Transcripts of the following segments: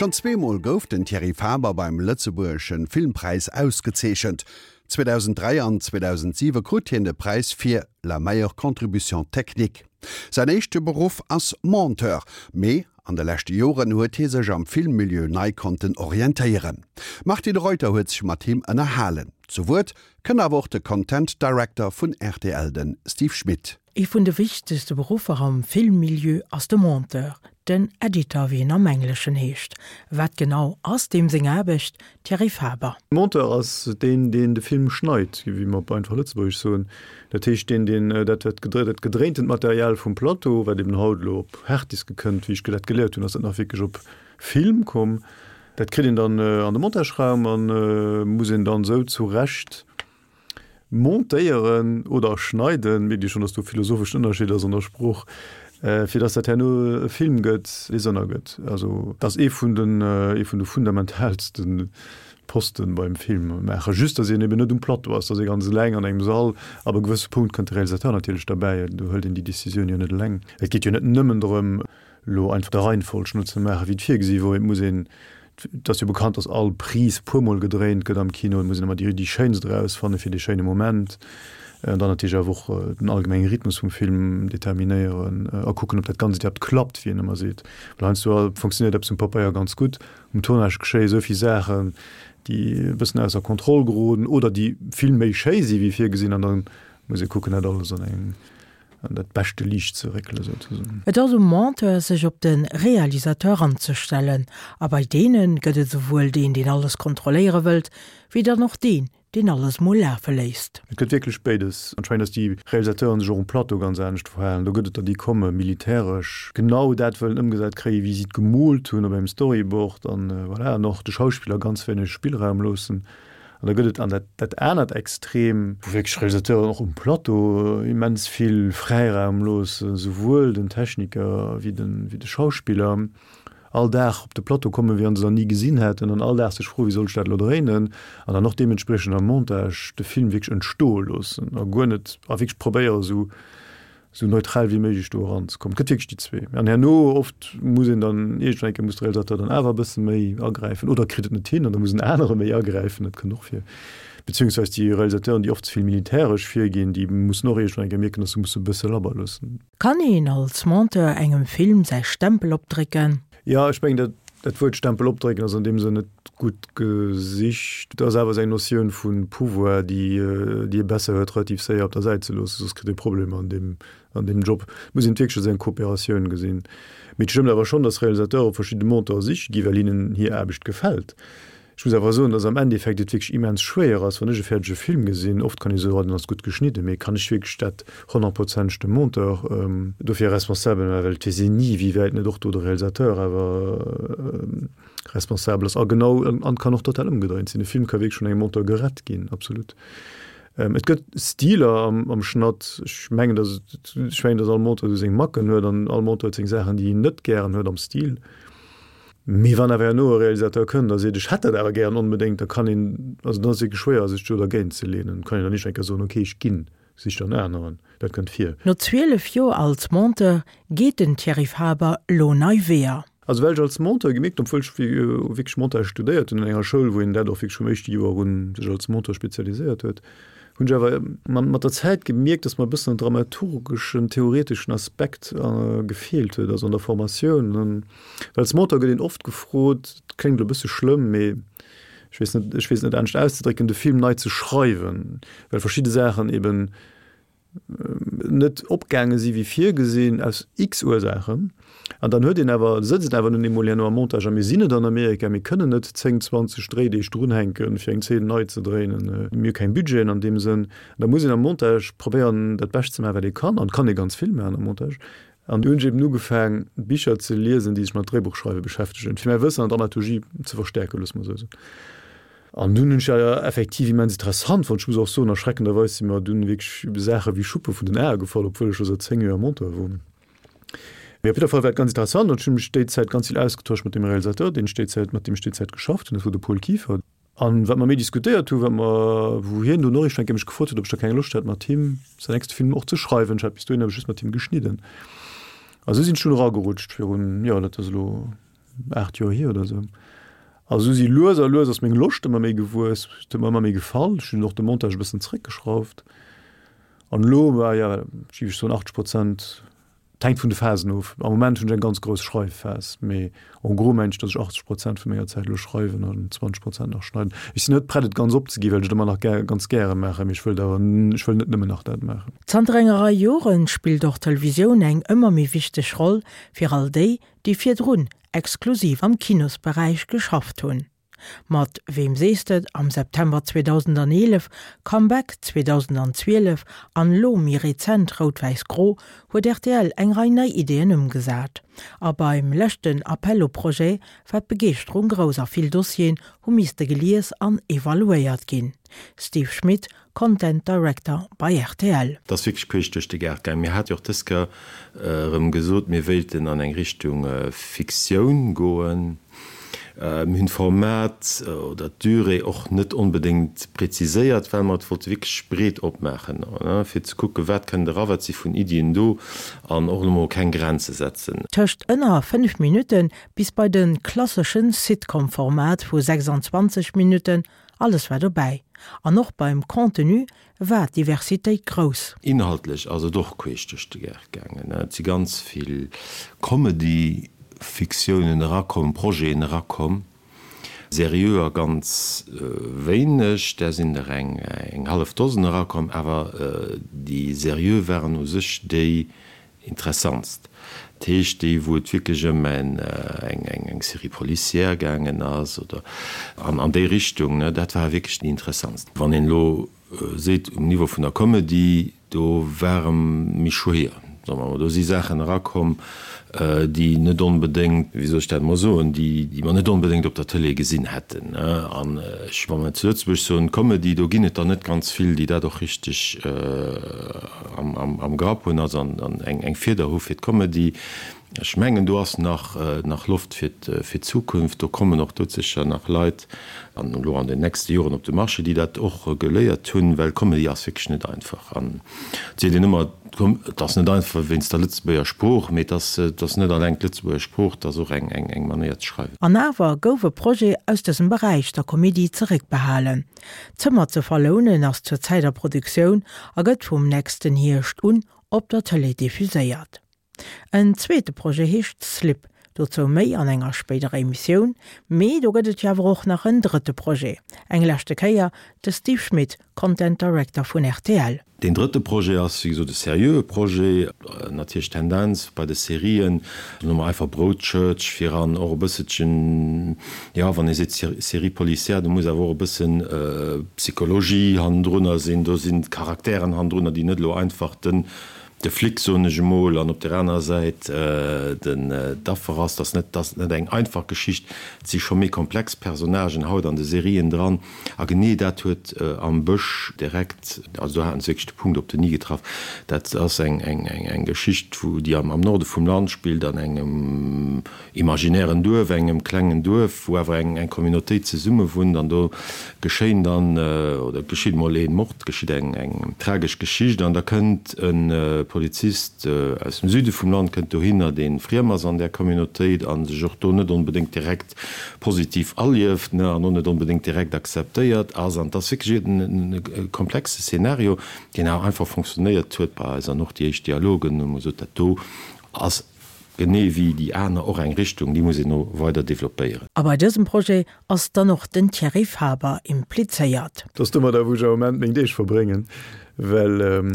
Schonn zweemol gouf den Thierry Faber beim Lëtzebuergesche Filmpräis ausgezeechent. 2003 an 2007 krut hien de Präis fir La meilleure contribution technique. Säin éischte Beruff ass Monteur, mee an de leschte Joren huet hie sech am Filmmilieu nei konnten orientéieren. D'Martine Reuter huet sech mat him ënnerhalen. Zu Wuert kënnt awer och de Content Director vun rtl, de Steve Schmit. Ee vun de wichtegste Beruffer am Filmmilieu ass de Monteur, den Editor wéi en am Engleschen heescht. Wat genau ass deem seng Aarbecht? Thierry Faber. Monteur ass deen, deen de Film schneit, wéi mer op einfach Lëtzebuergesch soen. Dat heescht deen, deen dat dat gedréintent Material vum Plateau, wat eben haut elo op Harddiske kënnt, wéi ech dat geléiert hunn, ass dat nach wierklech op Film komm. Dat kritt een dann an de Montageraum a muss een dann esou zurecht montéieren oder schneiden, mierkt Dir schonn, dass do e philosopheschen Ënnerscheed ass an der Sprooch, fir dass dat herno e Film gëtt, dee Sënn ergëtt. Also dat ass ee vun den, ee vun de fundamentaalste Posten beim Film maachen. Just, dass een eben net um Plateau ass, dass ee ganz eleng an engem Sall. Ab e gewësse Punkt kënnt de Realisateur natierlech derbäi, do hëlt een déi Decisioun jo net eleng. Et geet jo net nëmmen drëm, elo einfach der Reihenfolg no ze maachen, wéi et virgesi wor. Et muss een, et ass jo bekannt, dass all Prise puermol gedréint gëtt am Kino, et muss een ëmmer déi déi schéinst erausfanne fir dee schéine Moment. An dann natierlech awer och den allgemenge Rhythmus vum Film determinéieren a kucken, ob dat Ganzt iwwerhaapt klappt, wéi een ëmmer seet. Well heiansdo funktionéiert eppes um Pabeier ganz gutt, um Tournage geschéie sou vill Saachen, déi e bëssen ausser Kontroll geroden oder déi vill méi schéi si wéi virgesinn an da muss ee kucken, dat alles an eng an dat beschte Liicht ze réckelen, souzesoen. Et ass um Monteur, sech op de Realisateur anzestellen. A bei deene gëtt et esouwuel deen, deen alles kontrolléiere wëllt, wéi dann och deen, deen alles mol lafe léisst. Et gëtt wierklech béides. Anscheinend, datt déi Realisateuren sech och um Plateau ganz anescht verhalen. Do gëtt et der, déi komme militäresch genau dat wëllen ëmgesat kréien, wéi si et gemoolt hunn op engem Storyboard an voilà, an och de Schauspiller ganz wéineg Spillraum loossen. An da gëtt et an dat, dat anert Extrem, wou wierklech Realisateuren och um Plateau immens vill Fräiraum loossen, souwuel den Techniker wéi den, wéi de Schauspiller, all Dag op de Plateau kommen, wéi wann se nach ni gesinn hätten, an all Dag sech froen, wéi soll ech dat elo dréinen, an dann och deementspriechend am Montage de Film wierklech entstoe loossen a guer net, a wierklech probéieren, esou esou neutral wéi méiglech do eranzekommen. Et gëtt wierklech déi zwee. An herno oft muss een dann iergendwann eng Kéier muss de Realisateur dann awer e bësse méi agräifen oder kritt et net hin an da muss en anere méi agräifen, dat kënnt och vir. Beziehungsweis déi Realisateuren, déi oft ze vill militäresch virginn, déi mussen och iergendwann eng Kéier mierken, datt se musse e bësse labber loossen. Kann een als Monteur engem Film säi Stempel opdrécken? Jo, ech mengen, dat, dat Wuert Stempel opdrécken ass an deem Sënn net gutt gesicht. Et ass awer esou eng Notioun vu Pouvoir, déi, déi ee besser huet, relativ séier op der Säit ze loossen, soss kritt ee Problemer an deem, an deem Job. Et muss een et wierklech als eng Kooperatioun gesinn. Mee et stëmmt awer schonn, datt Realisateure verschidde Monteure siche gi well hinnen hir Aarbecht gefält. Ech muss awer soen, dass am Endeffekt et wierklech immens schwéier ass, wann ech e fäerdege Film gesinn, oft kann ee soen, oh, den ass gutt geschnidden, mee kann ech wierklech dat honnertprozenteg dem Monteur dofir responsabel maachen, well et weess een ni, wéi wäit net och do de Realisateur awer responsabel ass. A genau, an et kann och total ëmgedréint sinn, e Film ka wierklech vun engem Monteur gerett ginn, absolut. Et gëtt Stiler am Schnatt, ech mengen, dass, ech mengen, dass all Monteur esou seng Macken huet an all Monteur huet seng Saachen, déi en net gären huet am Stil. Mee wann awer herno e Realisateur kënnt a seet, ech hätt dat awer gären onbedéngt, da kann een, also dann ass et wierklech schwéier, sech do dergéint ze leenen. Kann een dann nicht eng Kéier soen, okay, ech ginn, sich dann aneren. Dat kënnt vir. No 12 Joer als Monteur geet den Thierry Faber lo nei Weeër. Also well ech als Monteur gemierkt hunn, obwuel ech wierklech Montage studéiert hunn an enger Schoul, wou een dat och wierklech vum éischte Joer un sech als Monteur spezialiséiert huet, hunn ech awer mat der Zäit gemierkt, dass mer e bëssen en dramaturgeschen, theoreteschen Aspekt gefeelt huet, also an der Formatioun. Well als Monteur gëtt een oft gefrot, et kléngt elo e bësse schlëmm, mee ech weess net, ech weess et net anescht auszedrécken, de Film nei ze schreiwen, well verschidde Saachen eben net opgaange si wéi virgesinn, aus x Ursaachen. An dann huet een awer, sëtzt een awer nun eemol herno am Montage, a mir sinn net an Amerika, mir kënnen net 10, 20 Dréideeg drunhänken, fir eng Zeen nei ze dréinen. Mir hu keng Budgeten an deem Sënn. An da muss een am Montage probéieren, dat Bescht ze maachen, wat ee kann. An et kann ee ganz vill maachen am Montage. An du hunn ech eben ugefaang, Bicher ze liesen, déi sech mat Dréibuchschreiwe beschäftegen, fir mäi Wëssen an Dramaturgie ze verstäerken, loosse mer esou soen. An dunn hunn ech dat effektiv immens interessant fonnt. Ech muss och soen, erschreckenderweis si mer dunn wierklech Saache wéi Schuppe vun den Ae gefall, obwuel ech scho säit 10 Joer Monteur wor. Mee op jidder Fall war et ganz interessant an ech hunn mech déi Zäit ganz vill ausgetosch mat deem Realisateur, deen ech déi Zäit, mat deem ech déi Zäit geschafft hunn, dat wor de Paul Kieffer. An wat mer méi diskutéiert hunn, wat mer, wou hien dunn och iergendwann eng Kéier mech gefrot huet, ob ech da keng Loscht hätt, mat him säin nächste Film och ze schreiwen. Ech hat bis dohinner just mat him geschnidden. A sou sinn ech dunn eragerutscht virun, jo, dat ass elo. 8 Joer hier oder esou. A sou si lues a lues ass meng Loscht ëmmer méi gewuess, et huet mer ëmmer méi gefall. Ech hunn och de Montage e bëssen zréckgeschrauft. An elo, bah ja, géif ech soen 80 Prozent, et hänkt vun de Phasen of. Am Moment hunn ech eng ganz grouss Schreifphas, mee en gros mengen ech, datt ech 80 Prozent vu menger Zäit elo schreiwen an 20 Prozent nach schneiden. Ech sinn net prett et ganz opzeginn, well ech et ëmmer nach gär, ganz gäre maachen, mee ech wëllt awer, ech wëll net nëmmen nach dat maachen. Zanter enger Rei Jore spillt och d'Televisioun eng ëmmer méi wichteg Roll fir all déi, déi virdrun exklusiv am Kinosberäich geschafft hunn. Mat Weem sees de am September 2011, Comeback 2012 an elo méi rezent Rout Wäiss Gro huet rtl eng Rei nei Ideeën ëmgesat. A beim leschten Appel aux projets war d'Begeeschterung grouss a vill Dossieren hu misste gelies an evaluéiert ginn. Steve Schmit, Content Director bei rtl. Et ass wierklech queesch duerch de Gaart gaangen. Mir hate jo och dës Kéier erëm gesot, mir wéilten an eng Richtung Fiktioun goen. Mir hunn d'Format oder d'Durée och net onbedéngt preziséiert, well mer et wollte wierklech breet opmaachen, fir ze kucken, wat kënnt era, wat si vun Iddien do an och elo mol keng Grenze setzen. Tëscht ënner 5 Minutte bis bei de klasseschen Sitcom-Format vu 26 Minutten Alles war dobäi. An och beim Contenu war d'Diversitéit grouss. Inhaltlech ass et och queesch duerch de Gaart gaangen. Et si ganz vill Comedy-Fiktiounen erakomm, Projeten erakomm, seriöer ganz wéineg, där sinn der eng hallef Dosen erakomm, awer déi seriö waren u sech déi Interessantst. Dat heescht déi wou et wierklech ëm eng Série policière gaangen ass oder an déi Richtung, ne, dat war wierklech déi interessantst. Wann een elo seet um Niveau vun der Comedy, do ware méi schwéier, soe mer emol, do si Saachen erakomm, déi net onbedéngt, wéi soll ech dat emol soen, déi mer net onbedéngt op der Tëlee gesinn hätten. An ech, wa mer zu Lëtzebuerg soen Comedy, do ginn et der net ganz vill, déi dat och richteg am Grapp hunn, also eng Fieder hu fir d'Comedy. Ech mengen, do ass nach Loft fir d'Zukunft. Do kommen och doudsécher nach Leit an elo an den nächste Joren op de Marché, déi dat och geléiert hunn, well Comedy ass wierklech net einfach. An et seet een ëmmer, et ass net einfach wéinst der Lëtzebuerger Sprooch, mee et ass et ass net alleng d'Lëtzebuerger Sprooch, et ass och eng eng Manéier ze schreiwen. An awer gouf e Projet aus dësem Beräich der Komedie zeréckbehalen. D'Zëmmer ze verlounen ass zur Zäit a Produktioun a gëtt vum nächsten Hierscht un op der Tëlee diffuséiert. En zweete Projet heescht Slip, dozou méi an enger spéiderer Emissioun. Mee do gëtt et jo awer och nach en drëtte Projet. Eng leschte Kéier de Steve Schmit, Content Director vun rtl. Deen drëtte Projet ass, wéi gesot, e seriöe Projet. Natierlech d'Tendenz bei de Serien, soe mer einfach Broadchurch viran, och e bësselchen, jo, wann ee seet Série policière, do muss awer och e bëssen Psychologie hannendrunner sinn, do sinn Charakteren hannendrunner, déi net elo einfach den de Flic, soen ech emol, an op der anerer Säit den d'Affer ass. Dat ass net, dat ass net eng einfach Geschicht. Et si scho méi komplex Personnagen haut an de Serien dran. A genee dat huet am Bësch direkt, also do haten se wierklech de Punkt op den i getraff. Dat ass eng, eng, eng Geschicht, wou, déi am, am Norde vum Land spillt, an engem, imaginären Duerf, engem klengen Duerf, wou awer eng eng Communautéit zesumme wunnt an do geschéien dann, oder et geschitt emol ee Mord, geschitt eng eng tragesch Geschicht an da kënnt e Polizist aus dem Süde vum Land kënnt dohinner, dee friem ass an där Communautéit a sech och do net onbedéngt direkt positiv alieft, ne, an och net onbedéngt direkt akzeptéiert ass an et ass wierklech e komplexe Szenario, deen awer einfach fonctionnéiert huet bei eis an och déi éischt Dialogen hu mer gesot, dat do ass Genee wéi déi aner och eng Richtung, déi muss een no weider developpéieren. A bei dësem Projet ass dann och den Thierry Faber implizéiert. Dat ass domadder, wou ech am Moment meng Deeg verbréngen, well,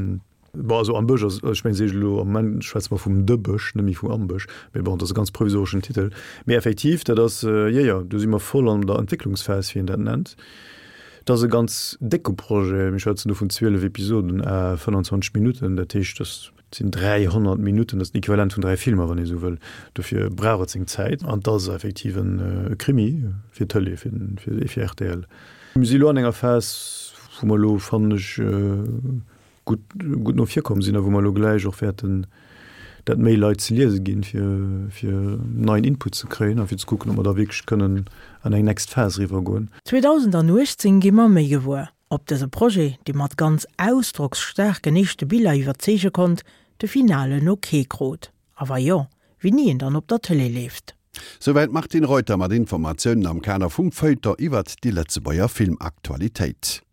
bon, also am Bësch ass, ech mengen, seet elo, am Moment schwätze mer vum De Bësch, net méi vum Am Bësch, mee bon, dat ass e ganz provisoreschen Titel. Mee effektiv, dat ass, jo, jo, do si mer voll an der Entwécklungsphas, wéi een dat nennt. Dat ass e ganz décke Projet, mir schwätzen do vun 12 Episoden à 25 Minutten, dat heescht, dass. Et sinn 300 Minutten, dat ass den Equivalent vun 3 Filmer, wann ee sou wëll. Dofir brauch et seng Zäit. An et ass effektiv e Krimi fir d'Tëlee, fir rtl. Mir si elo an enger Phas, wou mer elo, fannen ech, gutt, gutt no vir komm sinn a wou mer elo gläich och wäerten dat méi Leit ze liese ginn, fir, fir neien Input ze kréien a fir ze kucken, ob mer da wierklech kënnen an eng next Phas eriwwergoen. 2018 gi mer méi gewuer. Ob dëse Projet, dee mat ganz ausdrocksstaarken éischte Biller iwwerzeege konnt, de finalen Ok krut, a wa jo, wéini en dann op der Tëlee leeft. Souwäit d'Martine Reuter mat Informatiounen am Kader vum Feuilleton iwwert déi Lëtzebuerger Filmaktualitéit.